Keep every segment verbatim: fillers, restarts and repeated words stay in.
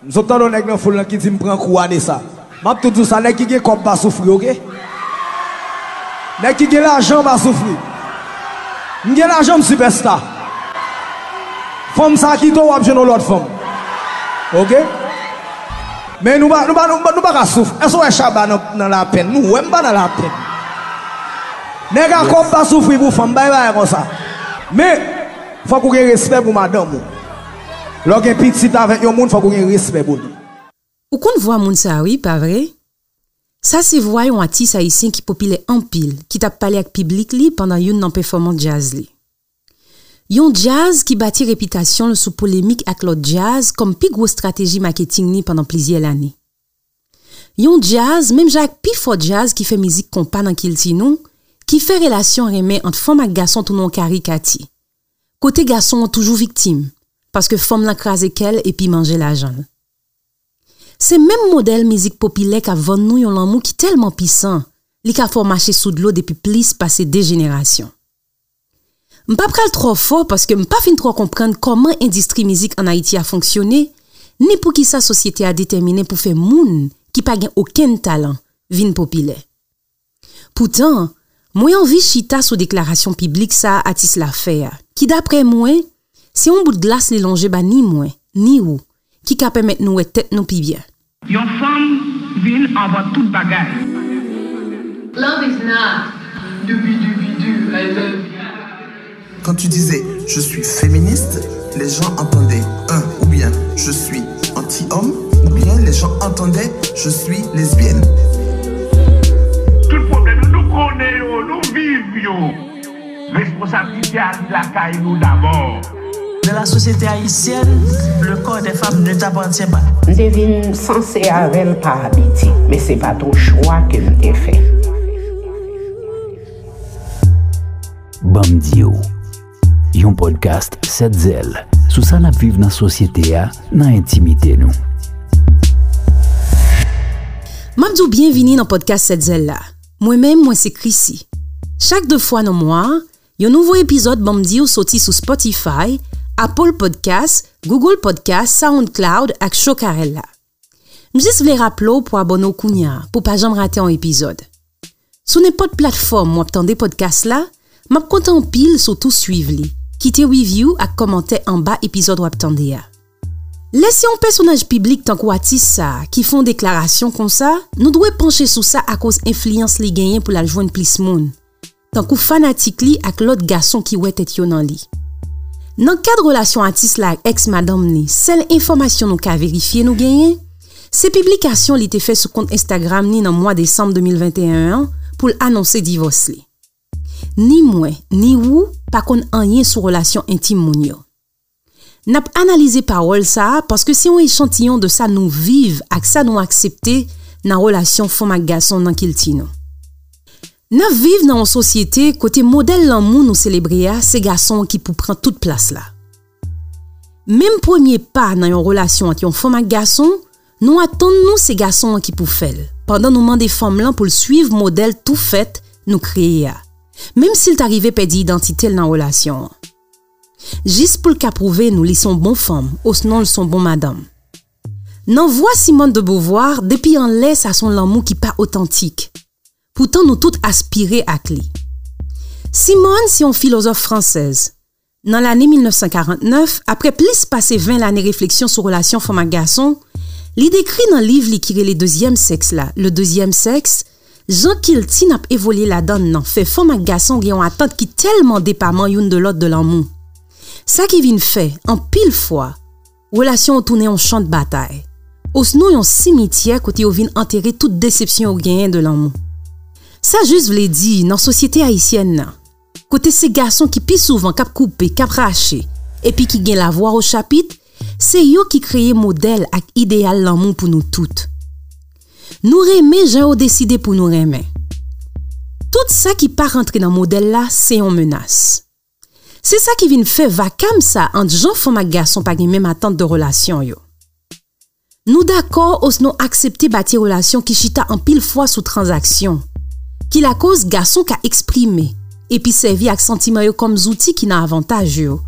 M sot tande yon nèg nan foul lan ki di m pran kou a de sa. M ap tou di w sa, nèg ki gen kòb pa soufri, oke? Nèg ki gen lajan pa soufri. M gen lajan, m sipèsta. Fanm sa kite w, w ap jwenn yon lòt fanm. Oke? Men nou pa, nou pa, nou pa, nou pa ka soufri. Èske w wè Shabba nan, nan lapenn? Nou wè m pa nan lapenn. Nèg a kòb pa soufri pou fanm, bay bagay konsa. Men, fòk ou gen respè pou madanm ou. Lè w gen pitit avèk yon moun, fòk ou gen respè pou li. Ou konn vwa moun sa a wi, pa vre? Sa se vwa yon atis ayisyen ki popilè anpil, ki t ap pale ak piblik li pandan youn nan pèfòmans djaz li. Yon djaz ki bati repitasyon l sou polemik ak lòt djaz kòm pi gwo estrateji maketing li pandan plizyè lane. Yon djaz, menm jan ak pifò djaz ki fè mizik konpa nan kilti nou, ki fè relasyon renmen ant fanm ak gason tounen yon karikati. Kote gason an toujou viktim, paske fanm lan kraze kè l epi manje lajan l. Se menm modèl mizik popilè k ap vann nou yon lanmou ki tèlman pisan, li ka fè w mache sou dlo depi plis pase de jenerasyon. M pa pral twò fò paske m pa fin twò konprann kòman endistri mizik ann Ayiti a fonksyone, ni poukisa sosyete a detèminen pou fè moun ki pa gen okenn talan vin popilè. Poutan, mwen anvi chita sou deklarasyon piblik sa a atis la fè a, ki daprè mwen, se yon bout glas li lonje ba ni mwen, ni ou, ki ka pèmèt nou wè tèt nou pi byen. Yon fanm vin anvan tout bagay. Love is not doobie doobie doo, I love you. Quand tu disais je suis féministe, les gens entendaient un, ou bien je suis anti-homme, ou bien les gens entendaient je suis lesbienne. Tout pwoblèm yo, nou konnen yo, nou viv yo. Responsablite a li lakay nou dabò. Dans la société haïtienne, le corps des femmes ne t'appartient pas. M te vin sanse avè l pa abitid, men se pa t yon chwa ke m te fè. Ban m di w, yon podcast Sèt Zèl sou sa n ap viv nan sosyete a, nan entimite nou. M ap di w byenvini nan podcast Sèt Zèl la. Mwen menm, mwen se Chrissy. Chak de fwa nan mwa a, yon nouvo epizòd Ban m di w soti sou Spotify, Apple Podcast, Google Podcast, SoundCloud ak Chokarella. M jis vle raple w pou abòne w kounye a, pou pa janm rate yon epizòd. Sou nenpòt platfòm w ap tande podcast la, m ap kontan anpil si w tou swiv li, kite review ak kòmantè anba epizòd w ap tande a. Lè se yon pèsonaj piblik tankou atis sa a ki fè yon deklarasyon konsa, nou dwe panche sou sa akoz enfliyans li genyen pou l al jwenn plis moun, tankou fanatik li ak lòt gason ki wè tèt yo nan li. Nan kad relasyon atis la ak èks madanm li, sèl enfòmasyon nou ka verifye nou genyen, se piblikasyon li te fè sou kont Instagram li nan mwa desanm de mil venteyen an pou l anonse divòs li. Ni mwen, ni ou pa konn anyen sou relasyon entim moun yo. N ap analize pawòl sa a paske se yon echantiyon de sa nou viv ak sa nou aksepte nan relasyon fanm ak gason nan kilti nou. N ap viv nan yon sosyete kote modèl lanmou nou selebre a se gason an ki pou pran tout plas la. Menm premye pa nan yon relasyon ant yon fanm ak gason, nou atann nou se gason an ki pou fè l, pandan nou mande fanm lan pou l swiv modèl tou fèt nou kreye a, menm si l ta rive pèdi idantite l nan relasyon an. Jis pou l ka pwouve nou li se yon bon fanm, osnon l se yon bon madanm. Nan vwa Simone de Beauvoir, depi anlè sa se yon lanmou ki pa otantik. Poutan nou tout aspire ak li. Simone se yon filozòf fransèz. Nan lane mil nèf san karant nèf, apre plis pase ven lane refleksyon sou relasyon fanm ak gason, li dekri nan liv li ki rele Dezyèm Sèks la, Le Deuxième Sexe, jan kilti n ap evolye ladan l nan fè fanm ak gason gen yon atant ki tèlman depaman youn de lòt de lanmou. Sa ki vin fè, anpil fwa, relasyon yo tounen yon chan de batay, osnon yon simityè kote yo vin antere tout desepsyon yo genyen de lanmou. Sa jis vle di, nan sosyete ayisyèn nan, kote se gason ki pi souvan k ap koupe, k ap rache, epi ki gen lavwa o chapit, se yo ki kreye modèl ak ideyal lanmou pou nou tout. Nou renmen jan yo deside pou nou renmen. Tout sa ki pa rantre nan modèl la, se yon menas. Se sa ki vin fè vakam sa ant jan fanm ak gason pa gen menm atant de relasyon yo. Nou dakò osnon aksepte bati relasyon ki chita anpil fwa sou tranzaksyon, ki lakoz gason ka eksprime epi sèvi ak santiman yo kòm zouti ki nan avantaj yo,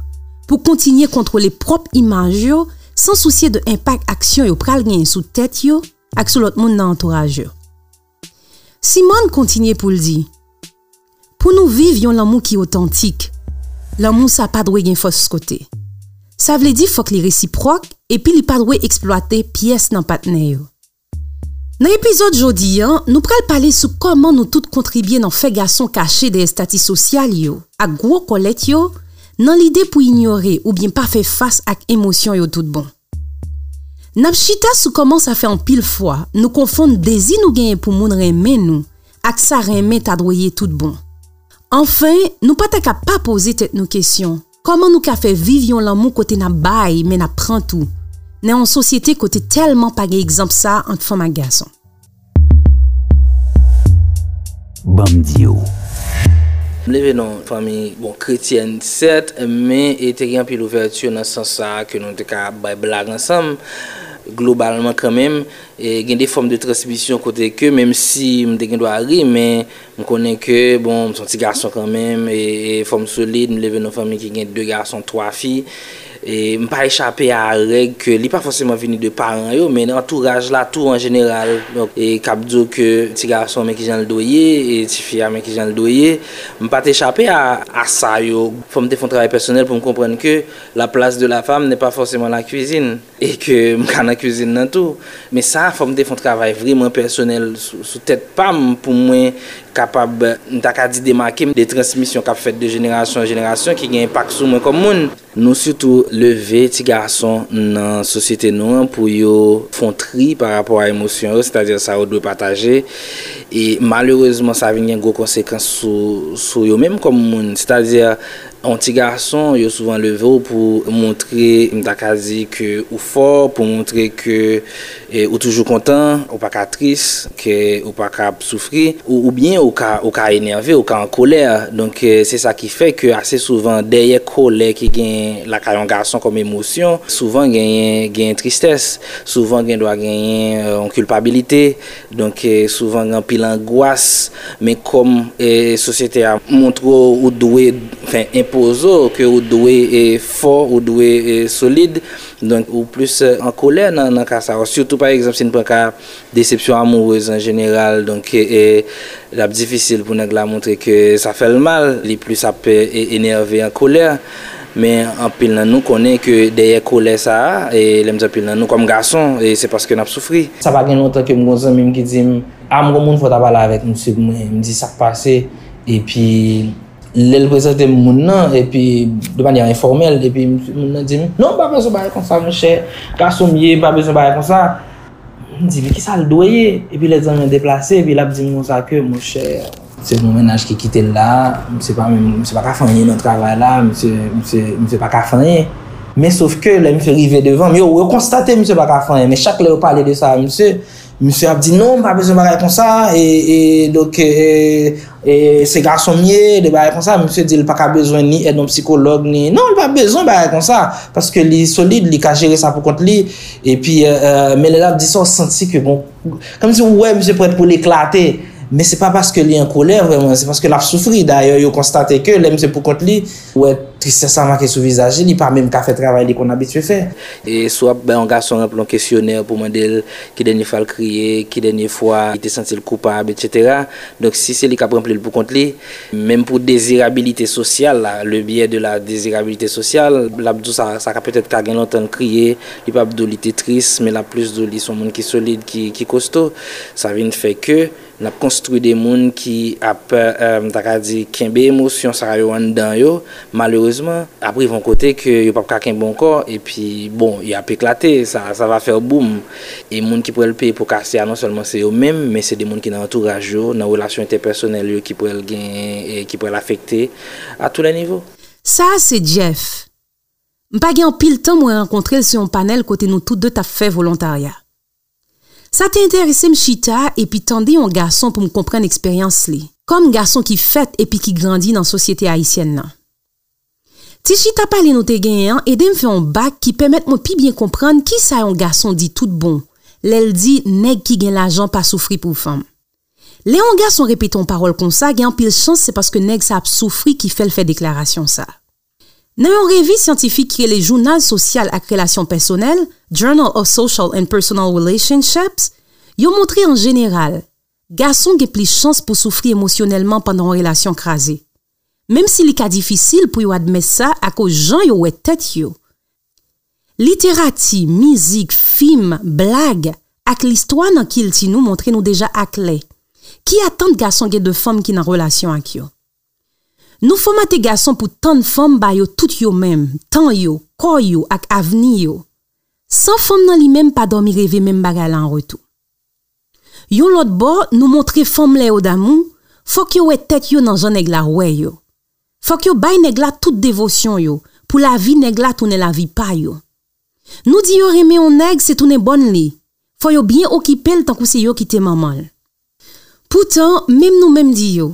pou kontinye kontwole pwòp imaj yo san sousye de enpak aksyon yo pral genyen sou tèt yo ak sou lòt moun nan antouraj yo. Simone kontinye pou l di, pou nou viv yon lanmou ki otantik, lanmou sa pa dwe gen fòs kote. Sa vle di fòk li resipwòk epi li pa dwe eksplwate pyès nan patnè yo. Nan epizòd jodi a, nou pral pale sou kòman nou tout kontribye nan fè gason kache dèyè estati sosyal yo ak gwo kòlèt yo, nan lide pou inyore oubyen pa fè fas ak emosyon yo tout bon. N ap chita sou kòman sa fè anpil fwa nou konfonn dezi nou genyen pou moun renmen nou ak sa renmen ta dwe ye tout bon. Anfen, nou pa ta ka pa poze tèt nou kesyon, kòman nou ka fè viv yon lanmou kote n ap bay, men n ap pran tou, nan yon sosyete kote tèlman pa gen egzanp sa ant fanm ak gason? Ban m di w. M leve nan fanmi, bon, kretyèn, sèt, men e te gen anpil ouvèti nan sans sa a ke nou te ka bay blag ansanm, globalman kanmenm. E gen de fòm de transmisyon kote ke, menm si m te gen dwa ri, men m konnen ke, bon, m se yon ti gason kanmenm, e, e fòm solid, m leve nan fanmi ki gen de gason, twa fi. E m pa echape a règ ke li pa fòseman vini de paran yo, men antouraj la tou an jeneral. Donk, e k ap di w ke ti gason men kijan l dwe ye, e ti fi a men kijan l dwe ye. M pa t echape a, a sa yo. Fò m te fè yon travay pèsonèl pou m konprann ke la place de la femme n'est pas forcément la cuisine. E ke m ka nan kwizin nan tou. Men sa, fò m te fè yon travay vrèman pèsonèl sou, sou tèt pa m pou mwen kapab, m ta ka di, demake m de transmisyon k ap fèt de jenerasyon an jenerasyon ki gen enpak sou mwen kòm moun. Nou sitou leve ti gason nan sosyete nou an pou yo fè yon tri pa rapò a emosyon yo, sètadi sa yo dwe pataje. E malerezman, sa vin gen gwo konsekans sou, sou yo menm kòm moun. Sètadi, yon ti gason, yo souvan leve w pou montre, m ta ka di, ke ou fò, pou montre ke e, ou toujou kontan, ou pa ka tris, ke ou pa ka ap soufri, ou, oubyen ou ka, ou ka enève, ou ka an kolè. Donk, e, se sa ki fè ke ase souvan, dèyè kòlè ki gen lakay yon gason kòm emosyon, souvan genyen, genyen tristès, souvan gen dwa genyen, e, yon kilpabilite. Donk, e, souvan gen anpil angwas, men kòm, e, sosyete a montre w ou dwe, anfen, enpoze w ke ou dwe, e, fò, ou dwe, e, solid, donk ou plis, e, an kolè nan, nan ka sa yo. Sitou, pa egzanp, si n pran ka desepsyon amourez an jeneral, donk, e, e, l ap difisil pou nèg la montre ke sa fè l mal, li plis ap, e, e, enève, an kolè. Men anpil nan nou konnen ke dèyè kolè sa a, e lè m di anpil nan nou, kòm gason, e se paske n ap soufri. Sa pa gen lontan ke m gen yon zanmi m ki di m, a, m gen yon moun fò w ta pale avèk misye pou mwen. M di, sa k pase? Epi, lè l prezante m moun nan, epi, de manyè enfòmèl, epi m- moun nan di m, non, m pa bezwen bagay konsa, monchè, gason m ye, m pa bezwen bagay konsa. M di, men kisa l dwe ye? Epi lè zanmi an deplase, epi l ap di m konsa ke, monchè, se yon mennaj ki kite l la, misye pa menm, misye pa ka fè anyen nan travay la, misye, misye, misye pa ka fè anyen. Men sof ke lè misye rive devan m, yo, yo konstate misye pa ka fè anyen, men chak lè yo pale de sa a misye, misye ap di, non, m pa bezwen bagay konsa, e, e, donk, e, e, se gason m ye, de bagay konsa, misye di l pa ka bezwen ni èd yon sikològ, ni, non, li pa bezwen bagay konsa, paske li solid, li ka jere sa pou kont li, epi, e, e, men lè l ap di sa, w santi ke, bon, kòmsi w wè misye prèt pou l eklate, men se pa paske li an kolè vrèman, se paske l ap soufri, dayè, yo konstate ke lè misye pou kont li, w wè tristès la make sou vizaj li, li pa menm ka fè travay li konn abitye fè. E si w ap bay yon gason ranpli yon kesyonè pou mande l ki dènye fwa l kriye, ki dènye fwa li te santi l koupab, etsetera. Donk, si se li k ap ranpli l pou kont li, menm pou dezirabilite sosyal la, le biais de la désirabilité sociale, l ap di w sa, sa ka petèt ka gen lontan l kriye, li p ap di w li te tris, men l ap plis di w li se yon moun ki solid, ki, ki kosto. Sa vin fè ke n ap konstwi de moun ki ap, e, m ta ka di, kenbe emosyon sa yo anndan yo, malerezman, ap rive yon kote ke yo p ap ka kenbe ankò, epi, bon, y ap eklate, sa, ça va faire boum. E moun ki pral peye po kase a, non sèlman se yo menm, men se de moun ki nan antouraj yo, nan relasyon entèpèsonèl yo ki pral genyen, e ki pral afekte à tous les niveaux. Sa a se Jeff. M pa gen anpil tan mwen rankontre l sou yon panèl kote nou tout de t ap fè volontarya. Sa te enterese m chita epi tande yon gason pou m konprann eksperyans li, kòm gason ki fèt epi ki grandi nan sosyete ayisyèn nan. Ti chita pale nou te genyen an ede m fè yon bak ki pèmèt mwen pi byen konprann kisa yon gason di tout bon lè l di nèg ki gen lajan pa soufri pou fanm. Lè yon gason repete yon pawòl konsa, gen anpil chans se paske nèg sa ap soufri ki fè l fè deklarasyon sa. Nan yon revi syantifik ki rele Jounal Sosyal ak Relasyon Pèsonèl, Journal of Social and Personal Relationships, yo montre an jeneral, gason gen plis chans pou soufri emosyonèlman pandan yon relasyon kraze. Menm si li ka difisil pou yo admèt sa akoz jan yo wè tèt yo. Literati, mizik, fim, blag, ak listwa nan kilti nou montre nou deja aklè ki atant gason gen de fanm ki nan relasyon ak yo. Nou fòmate gason pou tann fanm ba yo tout yo menm, tan yo, kò yo ak avni yo. San fanm nan li menm pa dòmi reve menm bagay la an retou. Yon lòt bò, nou montre fanm lè yo damou, fòk yo wè tèt yo nan jan nèg la wè yo. Fòk yo bay nèg la tout devosyon yo, pou lavi nèg la tounen lavi pa yo. Nou di yo renmen yon nèg se tounen bòn li, fò yo byen okipe l tankou se yo ki te manman l. Poutan, menm nou menm di yo,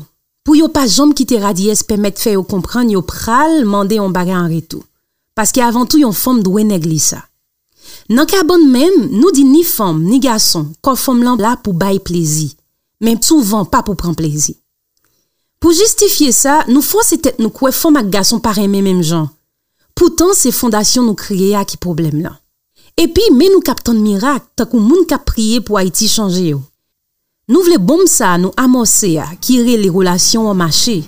pou yo pa janm kite radiyès pèmèt fè yo konprann yo pral mande yon bagay an retou. Paske avan tou yon fanm dwe nèg li sa. Nan ka bann menm, nou di ni fanm, ni gason, kò fanm lan la pou bay plezi, men souvan pa pou pran plezi. Pou jistifye sa, nou fòse tèt nou kwè fanm ak gason pa renmen menm jan. Poutan, se fondasyon nou kreye a ki pwoblèm lan. Epi, men nou k ap tann mirak, tankou moun k ap priye pou Ayiti chanje yo. Nou vle bonm sa a nou amòse a, ki rele relasyon an mache,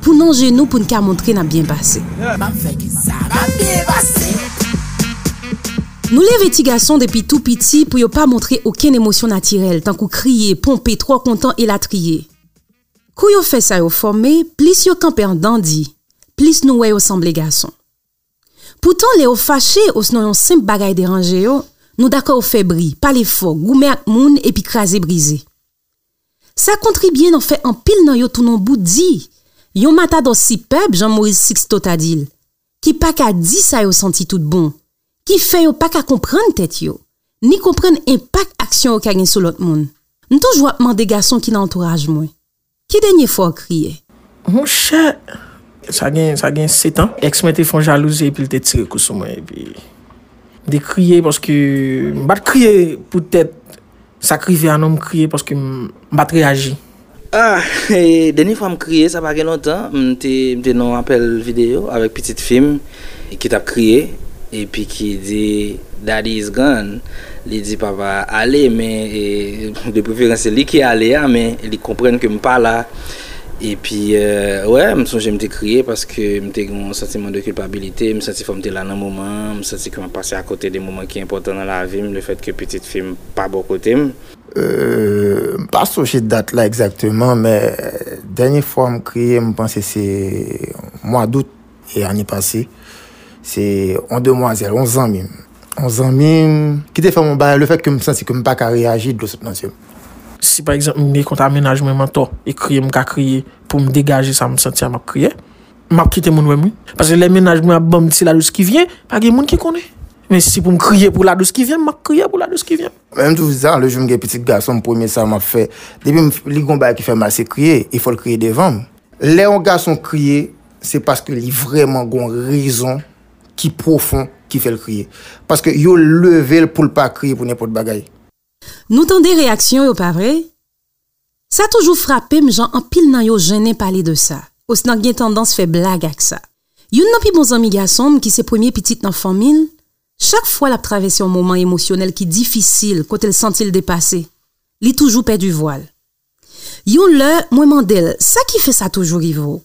pou n anje nou pou n ka montre n ap byen pase. M ap fè ke sa va byen pase. Nou leve ti gason depi tou piti pou yo pa montre okenn emosyon natirèl, tankou kriye, ponpe, twò kontan, elatriye. Kou yo fè sa yo fòme, plis yo kanpe an dandi, plis nou wè yo sanble gason. Poutan, lè yo fache osnon yon senp bagay deranje yo, nou dakò yo fè bri, pale fò, goumen ak moun epi kraze brize. Sa kontribye nan fè anpil nan yo tounen yon bout di, yon matadò sipèb, jan Moris Siksto ta di l, ki pa ka di sa yo santi tout bon, ki fè yo pa ka konprann tèt yo, ni konprann enpak aksyon yo ka gen sou lòt moun. M toujou ap mande gason ki nan antouraj mwen, ki dènye fwa w kriye? Monchè, sa gen, sa gen sèt an. Èks mwen te fè yon jalouzi epi l te tire kou sou mwen. Epi m te kriye paske m pa t kriye poutèt sa k rive a non, m kriye paske m, m pa t reyaji. Ah, e, dènye fwa m kriye, sa pa gen lontan. M te, m te nan yon apèl videyo avèk pitit fi m ki t ap kriye epi ki di, "Daddy is gone." Li di, "Papa ale," men, e, de preferans, se li ki ale a, men li konprann ke m pa la. Epi, e, wè, m sonje m te kriye paske m te gen yon santiman de kilpabilite. M santi fò m te la nan moman an. M santi ke m ap pase akote de moman ki enpòtan nan lavi m, lefètke pitit fi m pa bò kote m. Euh, m pa sonje dat la egzakteman, men dènye fwa m kriye, m panse se mwa dout e ane pase. Se yon demwazèl, yon zanmi m. Yon zanmi m ki te fè m yon bagay, lefètke m santi ke m pa ka reyaji, dlo sot nan zye m. Si pa egzanp, m gen kont a mennaj mwen m antò, e kriye m ka kriye pou m degaje sa m santi a, m ap kriye. M ap kite moun wè m, wi. Paske lè mennaj mwen ap ban m ti la dous ki vyen, pa gen moun ki konnen. Men si pou m kriye pou la dous ki vyen, m ap kriye pou la dous ki vyen. Menm tou sa, le jou m gen pitit gason m, premye sa m ap fè, depi m, li gon bagay ki fè mal, se kriye, e fò l kriye devan m. Lè yon gason kriye, se paske li vrèman gon rezon ki pwofon ki fè l kriye. Paske yo leve l pou l pa kriye pou nenpòt bagay. Nou tande reyaksyon yo, pa vre? Sa toujou frape m jan anpil nan yo jennen pale de sa, osnon gen tandans fè blag ak sa. Youn nan pi bon zanmi gason m, ki se premye pitit nan fanmi l, chak fwa l ap travèse yon moman emosyonèl ki difisil, kote l santi l depase, li toujou pèdi vwa l. Yon lè, mwen mande l, "Sa ki fè sa toujou rive w?"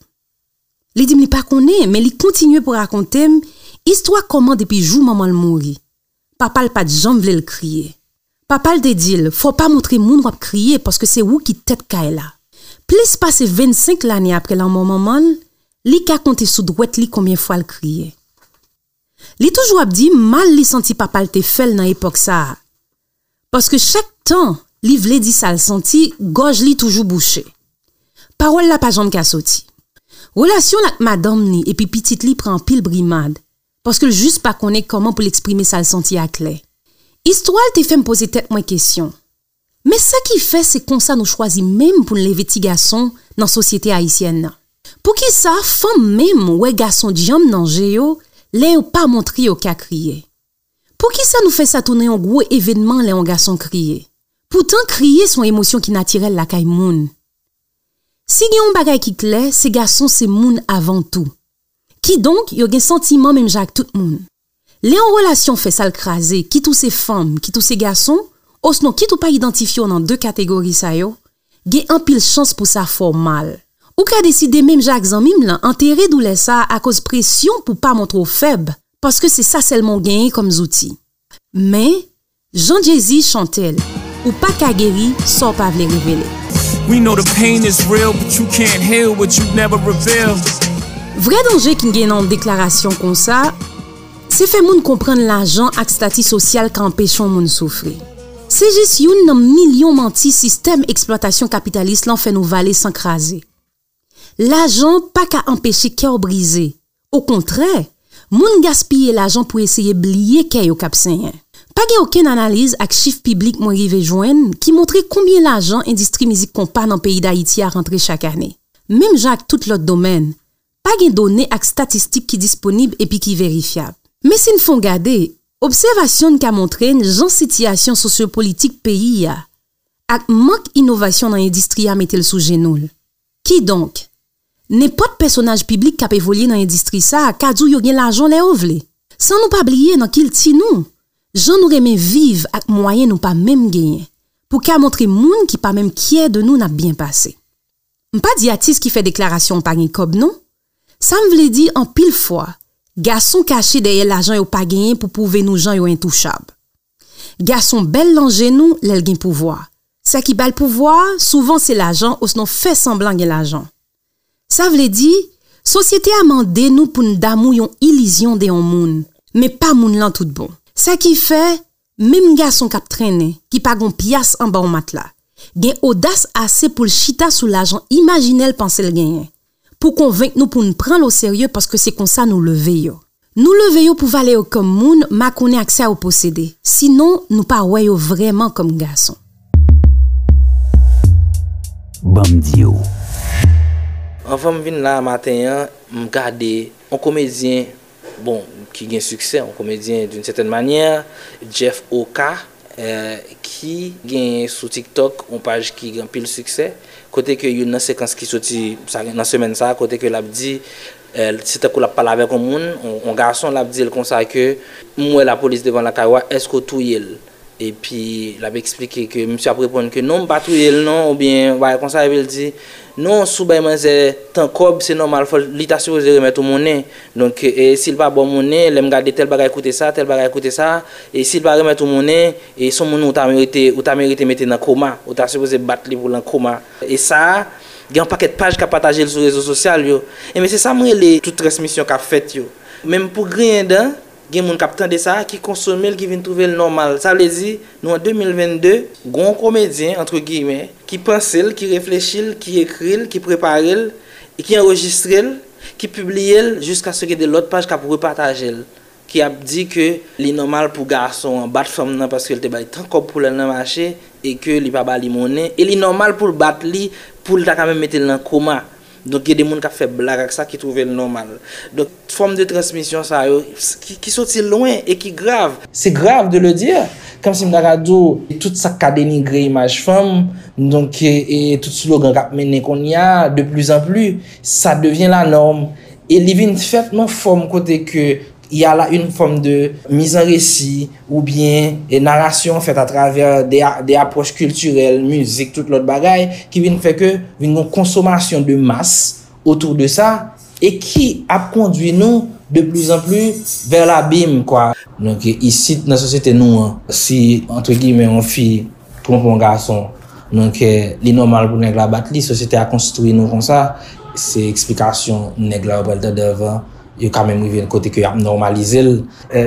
Li di m li pa konnen, men li kontinye pou rakonte m istwa kòman depi jou manman l mouri, papa l pa t janm vle l kriye. Papa l te di l, "Fò w pa montre moun w ap kriye, paske se ou ki tèt kay la." Plis pase vennsenk lane apre lanmò manman l, li ka konte sou dwèt li konbyen fwa l kriye. Li toujou ap di m mal li santi papa l te fè l nan epòk sa a. Paske chak tan li vle di sa l santi, gòj li toujou bouche. Pawòl la pa janm ka soti. Relasyon l ak madanm li epi pitit li pran anpil brimad, paske l jis pa konnen kòman pou l eksprime sa l santi a klè. Istwa l te fè m poze tèt mwen kesyon. Men sa ki fè se konsa nou chwazi menm pou n leve ti gason nan sosyete ayisyèn nan? Poukisa fanm menm wè gason djanm nan je yo lè yo pa montre yo ka kriye? Poukisa nou fè sa tounen yon gwo evènman lè yon gason kriye? Poutan kriye se yon emosyon ki natirèl lakay moun. Si gen yon bagay ki klè, se gason se moun avan tou. Kidonk, yo gen santiman menm jan ak tout moun. Lè yon relasyon fè sa l kraze, kit ou se fanm, kit ou se gason, osnon kit ou pa idantifye w nan de kategori sa yo, gen anpil chans pou sa fè w mal. Ou ka deside, menm jan ak zanmi m lan, antere doulè sa a akoz presyon pou pa montre w fèb, paske se sa sèlman w genyen kòm zouti. Men, jan Jay-Z chante l, ou pa ka geri sa w pa vle revele. We know the pain is real, but you can't heal what you never reveal. Vrè danje ki n gen nan yon deklarasyon konsa, se fè moun konprann lajan ak stati sosyal ka anpeche yon moun soufri. Se jis youn nan milyon manti sistèm eksplwatasyon kapitalis lan fè nou vale san kraze. Lajan pa ka anpeche kè w brize. Okontrè, moun gaspiye lajan pou eseye bliye kè yo k ap senyen. Pa gen okenn analiz ak chif piblik mwen rive jwenn ki montre konbyen lajan endistri mizik konpa nan peyi Dayiti a rantre chak ane. Menm jan ak tout lòt domèn, pa gen done ak statistik ki disponib epi ki verifyab. Men si n fè yon gade, obsèvasyon n ka montre n jan sitiyasyon sosyopolitik peyi a ak mank inovasyon nan endistri a mete l sou jenou l. Kidonk, nenpòt pèsonaj piblik k ap evolye nan endistri sa a ka di w yo gen lajan lè yo vle. San nou pa bliye nan kilti nou, jan nou renmen viv ak mwayen nou pa menm genyen, pou ka montre moun ki pa menm kyè de nou n ap byen pase. M pa di atis ki fè deklarasyon an pa gen kòb non. Sa m vle di, anpil fwa, gason kache dèyè lajan yo pa genyen pou pwouve nou jan yo entouchab. Gason bèl nan je nou lè l gen pouvwa. Sa ki ba l pouvwa a, souvan se lajan osnon fè sanblan gen lajan. Sa vle di, sosyete a mande nou pou n damou yon ilizyon de yon moun, men pa moun lan tout bon. Sa ki fè, menm gason k ap trennen, ki pa gon pyas anba yon matla, gen odas ase pou l chita sou lajan imajinè l panse l genyen, pou konvenk nou pou n pran l oserye paske se konsa nou leve yo. Nou leve yo pou valè yo kòm moun, makonnen ak sa yo posede. Sinon, nou pa wè yo vrèman kòm gason. Ban m di w. Anvan m vin la maten an, m gade yon komedyen, bon, ki gen siksè, yon komedyen d'une certaine manière, Jeff Oka, ki genyen sou TikTok yon paj ki gen anpil siksè, kote ke youn nan sekans ki soti nan semèn sa a, kote ke l ap di, se tankou l ap pale avèk yon moun, yon gason, l ap di l konsa ke, m wè lapolis devan lakay ou a, èske w touye l? Epi l ap eksplike ke misye ap reponn ke non, m pa touye l non, oubyen yon bagay konsa, epi l di, non, si w bay manzè tan kòb, se nòmal, fò l, li ta sipoze remèt ou monnen. Donk, e, si l pa ba w monnen, lè m gade tèl bagay koute sa, tèl bagay koute sa, e si l pa remèt ou monnen, e se yon moun ou ta merite, ou ta merite mete nan koma, ou ta sipoze bat li pou l an koma. E sa a, gen yon pakèt paj k ap pataje l sou rezo sosyal yo. Enben, se sa m rele tout transmisyon k ap fèt yo. Menm pou griyen dan, gen moun k ap tande sa, ki konsome l, ki vin twouve l nòmal. Sa vle di, nou an de mil vennde, gen yon komedyen, entre guillemets, ki panse l, ki reflechi l, ki ekri l, ki prepare l, e ki anrejistre l, ki pibliye l, jiskaske de lòt paj k ap repataje l, ki ap di ke li nòmal pou gason an bat fanm nan paske l te bay tan kòb pou l al nan mache, e ke li pa ba li monnen, e li nòmal pou l bat li, pou l ta ka menm mete l nan koma. Donk, gen de moun k ap fè blag ak sa ki twouve l nòmal. Donk, fòm de transmisyon sa yo, ki, ki soti lwen e ki grav. C'est grave de le dire. Kòmsi m ta ka di w, tout sa k ka denigre imaj fanm, donk, e, e tout slogan k ap mennen kounye a, de plus en plus, ça devient la norme. E li vin fèt nan fòm kote ke y a la une forme de mise en récit oubyen narasyon fèt atravè de, de apwòch kiltirèl, mizik, tout lòt bagay, ki vin fè ke vin gen yon konsomasyon de mas otou de sa, e ki ap kondwi nou de plus en plus vers l'abîme, kwa. Donk, isit, nan sosyete nou an, si, entre guillemets, yon fi twonpe yon gason, donk, li nòmal pou nèg la bat li, sosyete a konstwi nou konsa, se eksplikasyon nèg la yo pral tande anvan yo ka menm rive kote ke y ap nòmalize l.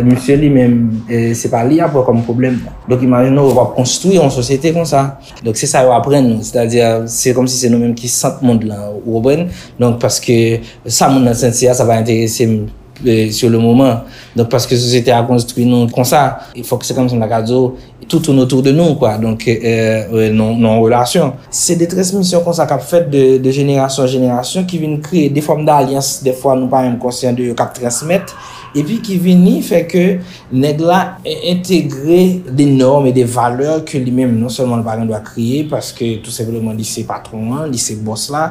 Misye li menm, se pa li y ap wè kòm pwoblèm nan. Donk, imajine w, w ap konstwi yon sosyete konsa. Donk, se sa yo aprann nou. Sètadi, se kòmsi se nou menm ki sant mond lan, ou konprann? Donk, paske sa moun nan santi a, sa pa enterese m sur le moment. Donk, paske sosyete a konstwi nou konsa, fòk se kòmsi m ta ka di w, tout tourne autour de nous, kwa. Donk, nan yon relasyon. Se de transmisyon konsa k ap fèt de, de jenerasyon an jenerasyon ki vin kreye de fòm d'alyans, dèfwa nou pa menm konsyan de yo, k ap transmèt, epi ki vini fè ke nèg la entegre de nòm e de valè ke li menm non sèlman li pa gen dwa kreye, paske tou senpleman li se patwon an, li se bòs la,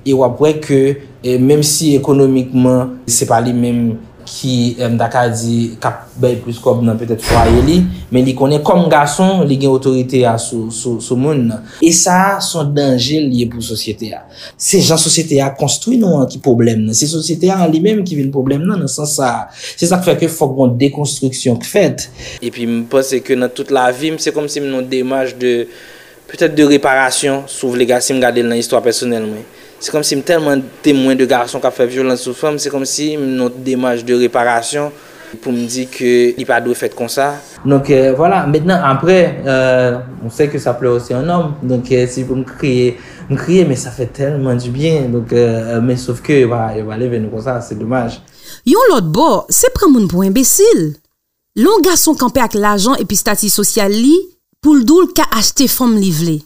e w ap wè ke E menm si ekonomikman, se pa li menm ki, eh, m ta ka di, k ap bay plis kòb nan petèt fwaye li, men li konnen kòm gason, li gen otorite a sou, sou, sou moun nan. E sa a, se yon danje l ye pou sosyete a. Se jan sosyete a konstwi nou an ki pwoblèm nan. Se sosyete a an li menm ki vin pwoblèm nan, nan sans sa a. Se sa k fè ke fòk gon dekonstriksyon k fèt. Epi m panse ke nan tout lavi m, se kòmsi m nan yon demach de, petèt de reparasyon, si w vle, si m gade l nan istwa pèsonèl mwen. Se kòmsi m tèlman temwen de gason k ap fè vyolans sou fanm, se kòmsi m nan yon demach de reparasyon pou m di ke li pa dwe fèt konsa. Donc, euh, voilà. Maintenant, après, euh, on sait que ça pleure aussi un homme. Donc, euh, si pou m kriye, m kriye, men sa fè tèlman di byen. Donc, euh, men sof ke yo pa, yo pa leve nou konsa, se domaj. Yon lòt bò, se pran moun pou enbesil. Lè yon gason kanpe ak lajan epi estati sosyal li, pou l di w l ka achte fanm li vle.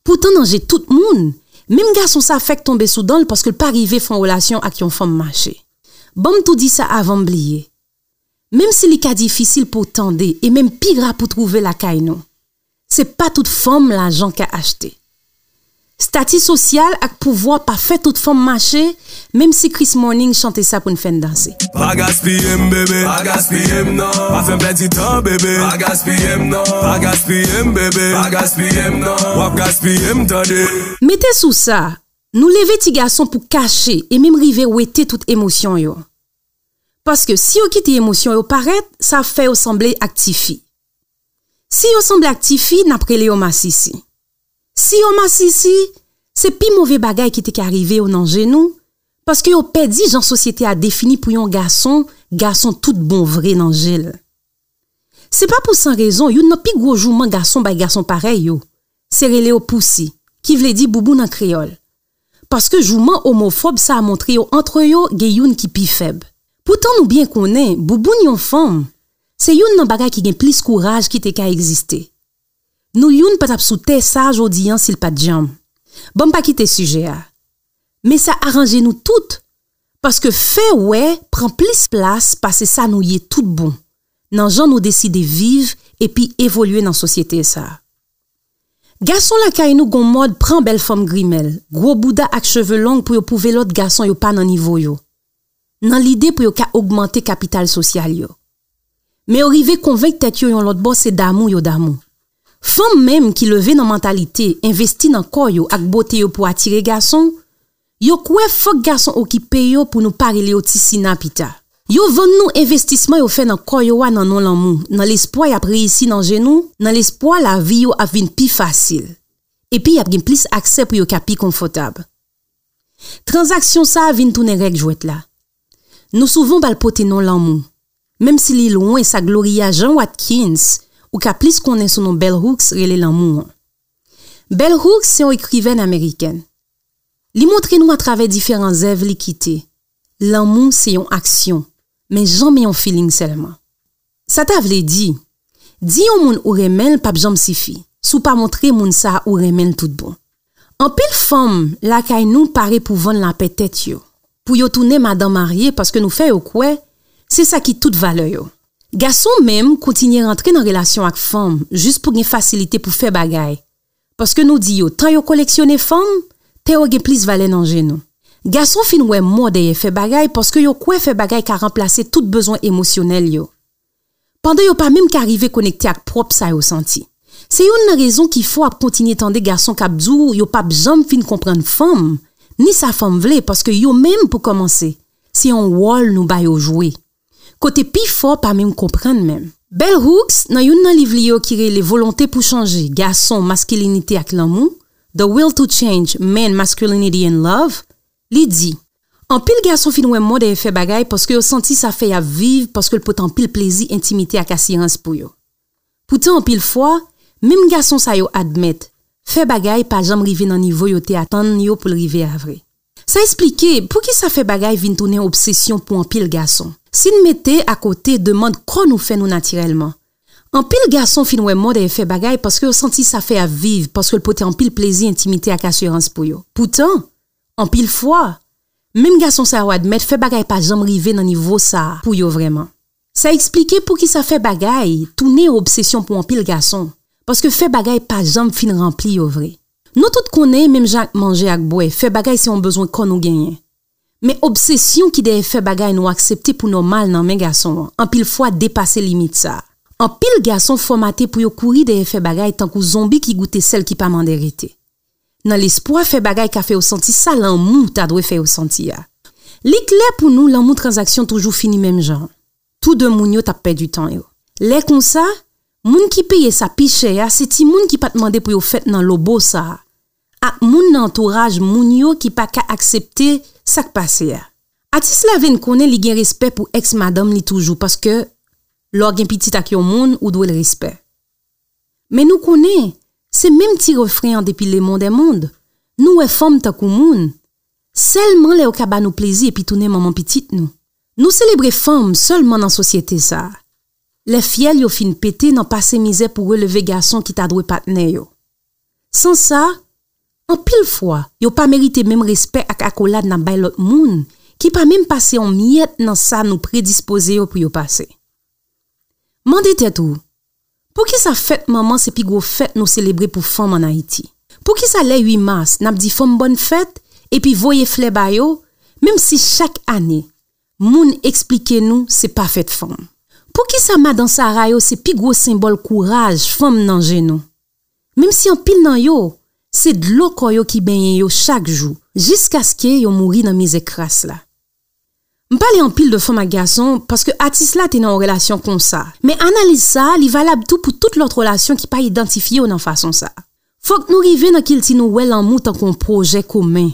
Poutan nan je tout moun, menm gason sa fèk tonbe sou dan l paske l pa rive fè yon relasyon ak yon fanm mache. Ban m tou di sa avan m bliye. Menm si li ka difisil pou w tande e menm pi ra pou w twouve lakay nou, se pa tout fanm lajan ka achte. Estati sosyal ak pouvwa pa fè tout fanm mache, menm si Chris Morning chante sa pou n fè n danse. Pa gaspiye m, bebe, pa gaspiye m, non. Pa fè m pèdi tan, bebe, pa gaspiye m, non. Pa gaspiye m, bebe, pa gaspiye m, non. W ap gaspiye m, tande. Mete sou sa, nou leve ti gason pou kache e menm rive wete tout emosyon yo. Paske si yo kite emosyon yo parèt, sa ap fè yo sanble ak tifi. Si yo sanble ak tifi, n ap rele yo masisi. Si yo masisi, se pi move bagay ki te ka rive yo nan je nou, paske yo pèdi jan sosyete a defini pou yon gason, gason tout bon vre nan je l. Se pa pou san rezon youn nan pi gwo jouman gason bay gason parèy yo, se rele yo pousi, ki vle di boubou nan kreyòl. Paske jouman omofòb sa a montre yo antre yo gen youn ki pi fèb. Poutan nou byen konnen bouboun yon fanm se youn nan bagay ki gen plis kouraj ki te ka egziste. Nou youn pa t ap sou tè sa a jodi an si l pa t djanm. Ban m pa kite sijè a. Men sa aranje nou tout, paske fè wè pran plis plas pase sa nou ye tout bon, nan jan nou deside viv epi evolye nan sosyete sa a. Gason lakay nou gon mòd pran bèl fanm grimèl, gwo bouda ak cheve long pou yo pwouve lòt gason yo pa nan nivo yo, nan lide pou yo ka ogmante kapital sosyal yo. Men yo rive konvenk tèt yo yon lòt bò se damou yo damou. Fanm menm ki leve nan mantalite envesti nan kò yo ak bote yo pou atire gason, yo kwè fòk gason okipe yo pou nou pa rele yo ti sina pita. Yo vann nou envestisman yo fè nan kò yo a nan non lanmou, nan lespwa y ap reyisi nan je nou, nan lespwa lavi yo ap vin pi fasil. Epi y ap gen plis aksè pou yo ka pi konfòtab. Tranzaksyon sa a vin tounen règ jwèt la. Nou souvan ba l pote non lanmou, menm si li lwen sa Gloria Jean Watkins, ou ka plis konnen sou non Bell Hooks, rele lanmou an. Bell Hooks se yon ekrivèn amerikèn. Li montre nou atravè diferan zèv li kite, lanmou se yon aksyon, men janmen yon feeling sèlman. Sa ta vle di, di yon moun ou renmen l p ap janm sifi si w pa montre moun sa a ou renmen l tout bon. Anpil fanm lakay nou pare pou vann lapè tèt yo, pou yo tounen madan marye paske nou fè yo kwè se sa ki tout valè yo. Gason menm kontinye rantre nan relasyon ak fanm jis pou gen fasilite pou fè bagay, paske nou di yo tan yo koleksyone fanm, tan yo gen plis valè nan je nou. Gason fin wè mò dèyè fè bagay paske yo kwè fè bagay ka ranplase tout bezwen emosyonèl yo, pandan yo pa menm ka rive konekte ak pwòp sa yo santi. Se youn nan rezon ki fè w ap kontinye tande gason k ap di w yo p ap janm fin konprann fanm, ni sa fanm vle, paske yo menm, pou kòmanse, se yon wòl nou ba yo jwe, kote pifò pa menm konprann menm. Bell Hooks, nan youn nan liv li yo ki rele Volonte pou chanje, Gason, Maskilinite ak Lanmou, The Will to Change, Men, Masculinity and Love, li di, anpil gason fin wè mò dèyè fè bagay paske yo santi sa fè y ap viv paske l pote anpil plezi, entimite ak asirans pou yo. Poutan anpil fwa, menm gason sa yo admèt, fè bagay pa janm rive nan nivo yo te atann yo pou l rive a vre. Sa esplike poukisa fè bagay vin tounen obsesyon pou anpil gason. Si n mete akote demann kò nou fè nou natirèlman, anpil gason fin wè mò dèyè fè bagay paske yo santi sa fè y ap viv paske l pote anpil plezi, entimite ak asirans pou yo. Poutan, anpil fwa, menm gason sa yo admèt fè bagay pa janm rive nan nivo sa a pou yo vrèman. Sa eksplike poukisa fè bagay tounen yon obsesyon pou anpil gason, paske fè bagay pa janm fin ranpli yo vre. Nou tout konnen, menm jan ak manje ak bwè, fè bagay se yon bezwen kò nou genyen. Men obsesyon ki dèyè fè bagay nou aksepte pou nòmal nan men gason an, anpil fwa depase limit sa a. Anpil gason fòmate pou yo kouri dèyè fè bagay tankou zonbi ki goute sèl ki pa mande rete. Nan lespwa fè bagay ka fè yo santi sa lanmou ta dwe fè yo santi a. Li klè pou nou lanmou tranzaksyon toujou fini menm jan. Tou de moun yo t ap pèdi tan yo. Lè konsa, moun ki peye sa pi chè a se timoun ki pa t mande pou yo fèt nan lobo sa a, ak moun nan antouraj moun yo ki pa ka aksepte sa k pase a. Atis la vin konnen li gen respè pou èks madanm li toujou, paske lè w gen pitit ak yon moun, ou dwe l respè. Men nou konnen, se menm ti refren an depi lemonn dè monn. Nou wè fanm tankou moun, sèlman lè yo ka ba nou plezi epi tounen manman pitit nou. Nou selebre fanm sèlman nan sosyete sa a. Lè fyèl yo fin pete nan pase mizè pou releve gason ki ta dwe patnè yo. San sa, anpil fwa, yo pa merite menm respè ak akolad n ap bay lòt moun ki pa menm pase yon myèt nan sa nou predispoze yo pou yo pase. Mande tèt ou, poukisa fèt manman se pi gwo fèt nou selebre pou fanm ann Ayiti? Poukisa lè uit mas, n ap di fanm bòn fèt epi voye flè ba yo, menm si chak ane, moun eksplike nou se pa fèt fanm? Poukisa madan Sara yo se pi gwo senbòl kouraj fanm nan je nou? Menm si anpil nan yo, se dlo kò yo ki benyen yo chak jou, jiskaske yo mouri nan mizè kras la. M pale anpil de fanm ak gason paske atis la te nan yon relasyon konsa, men analiz sa a li valab tou pou tout lòt relasyon ki pa idantifye yo nan fason sa a. Fòk nou rive nan kilti nou wè lanmou tankou yon pwojè komen,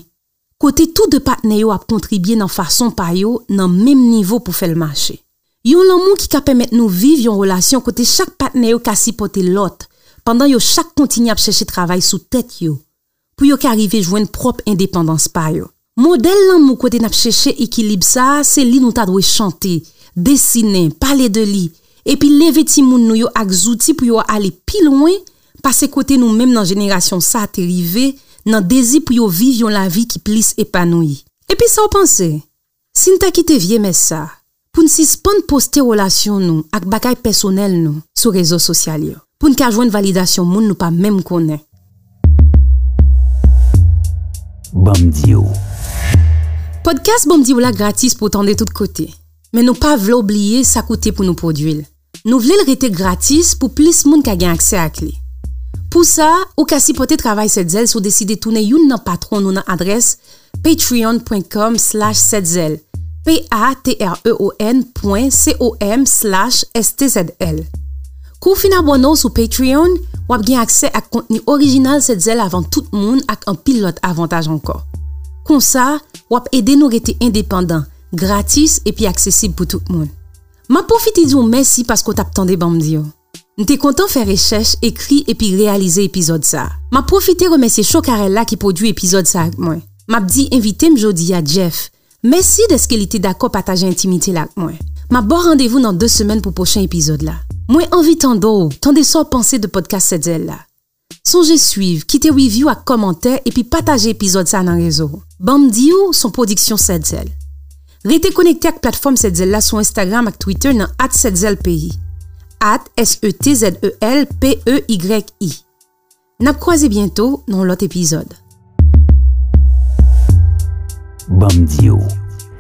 kote tou de patnè yo ap kontribye nan fason pa yo nan menm nivo pou fè l mache. Yon lanmou ki ka pèmèt nou viv yon relasyon kote chak patnè yo ka sipòte lòt, pandan yo chak kontinye ap chèche travay sou tèt yo, pou yo ka rive jwenn pwòp endepandans pa yo. Modèl lanmou kote n ap chèche ekilib sa a, se li nou ta dwe chante, desinen, pale de li, epi leve timoun nou yo ak zouti pou yo ale pi lwen pase kote nou menm nan jenerasyon sa a te rive, nan dezi pou yo viv yon lavi ki plis epanouyi. Epi sa w panse? Si n ta kite vye mès sa a, pou n sispann poste relasyon nou ak bagay pèsonèl nou sou rezo sosyal yo, pou n ka jwenn validasyon moun nou pa menm konnen. Ban m di w. Pòdkas Ban m di w la gratis pou w tande tout kote, men nou pa vle w bliye sa koute pou nou pwodui l. Nou vle l rete gratis pou plis moun ka gen aksè ak li. Pou sa, ou ka sipòte travay Sèt Zèl si w deside tounen youn nan patwon nou nan adrès patreon pwen kòm slash sèt zèl, P A T R E O N pwen C O M slash S T Z L. Kou w fin abòne w sou Patreon, w ap gen aksè ak kontni orijinal Sèt Zèl avan tout moun ak anpil lòt avantaj ankò. Konsa, w ap ede nou rete endepandan, gratis epi aksesib pou tout moun. M ap pwofite di w mèsi paske w t ap tande Ban m di w. M te kontan fè rechèch, ekri epi reyalize epizòd sa a. M ap pwofite remèsye Chokarella ki pwodui epizòd sa a ak mwen. M ap di envite m jodi a, Jeff, mèsi dèske li te dakò pataje entimite l ak mwen. M ap ba w randevou nan de semèn pou pwochen epizòd la. Mwen anvi tande w, tande sa w panse de pòdkas Sèt Zèl la. Sonje swiv, kite review ak kòmantè epi pataje epizòd sa a nan rezo w. Ban m di w se yon pwodiksyon Sèt Zèl. Rete konekte ak platfòm Sèt Zèl la sou Instagram ak Twitter nan at Sèt Zèl P E Y, at S E T Z E L P E Y I. N ap kwaze byento nan yon lòt epizòd. Ban m di w,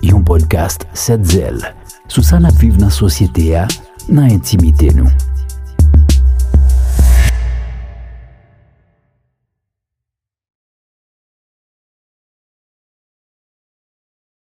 yon pòdkas Sèt Zèl, sou sa n ap viv nan sosyete a, nan entimite nou.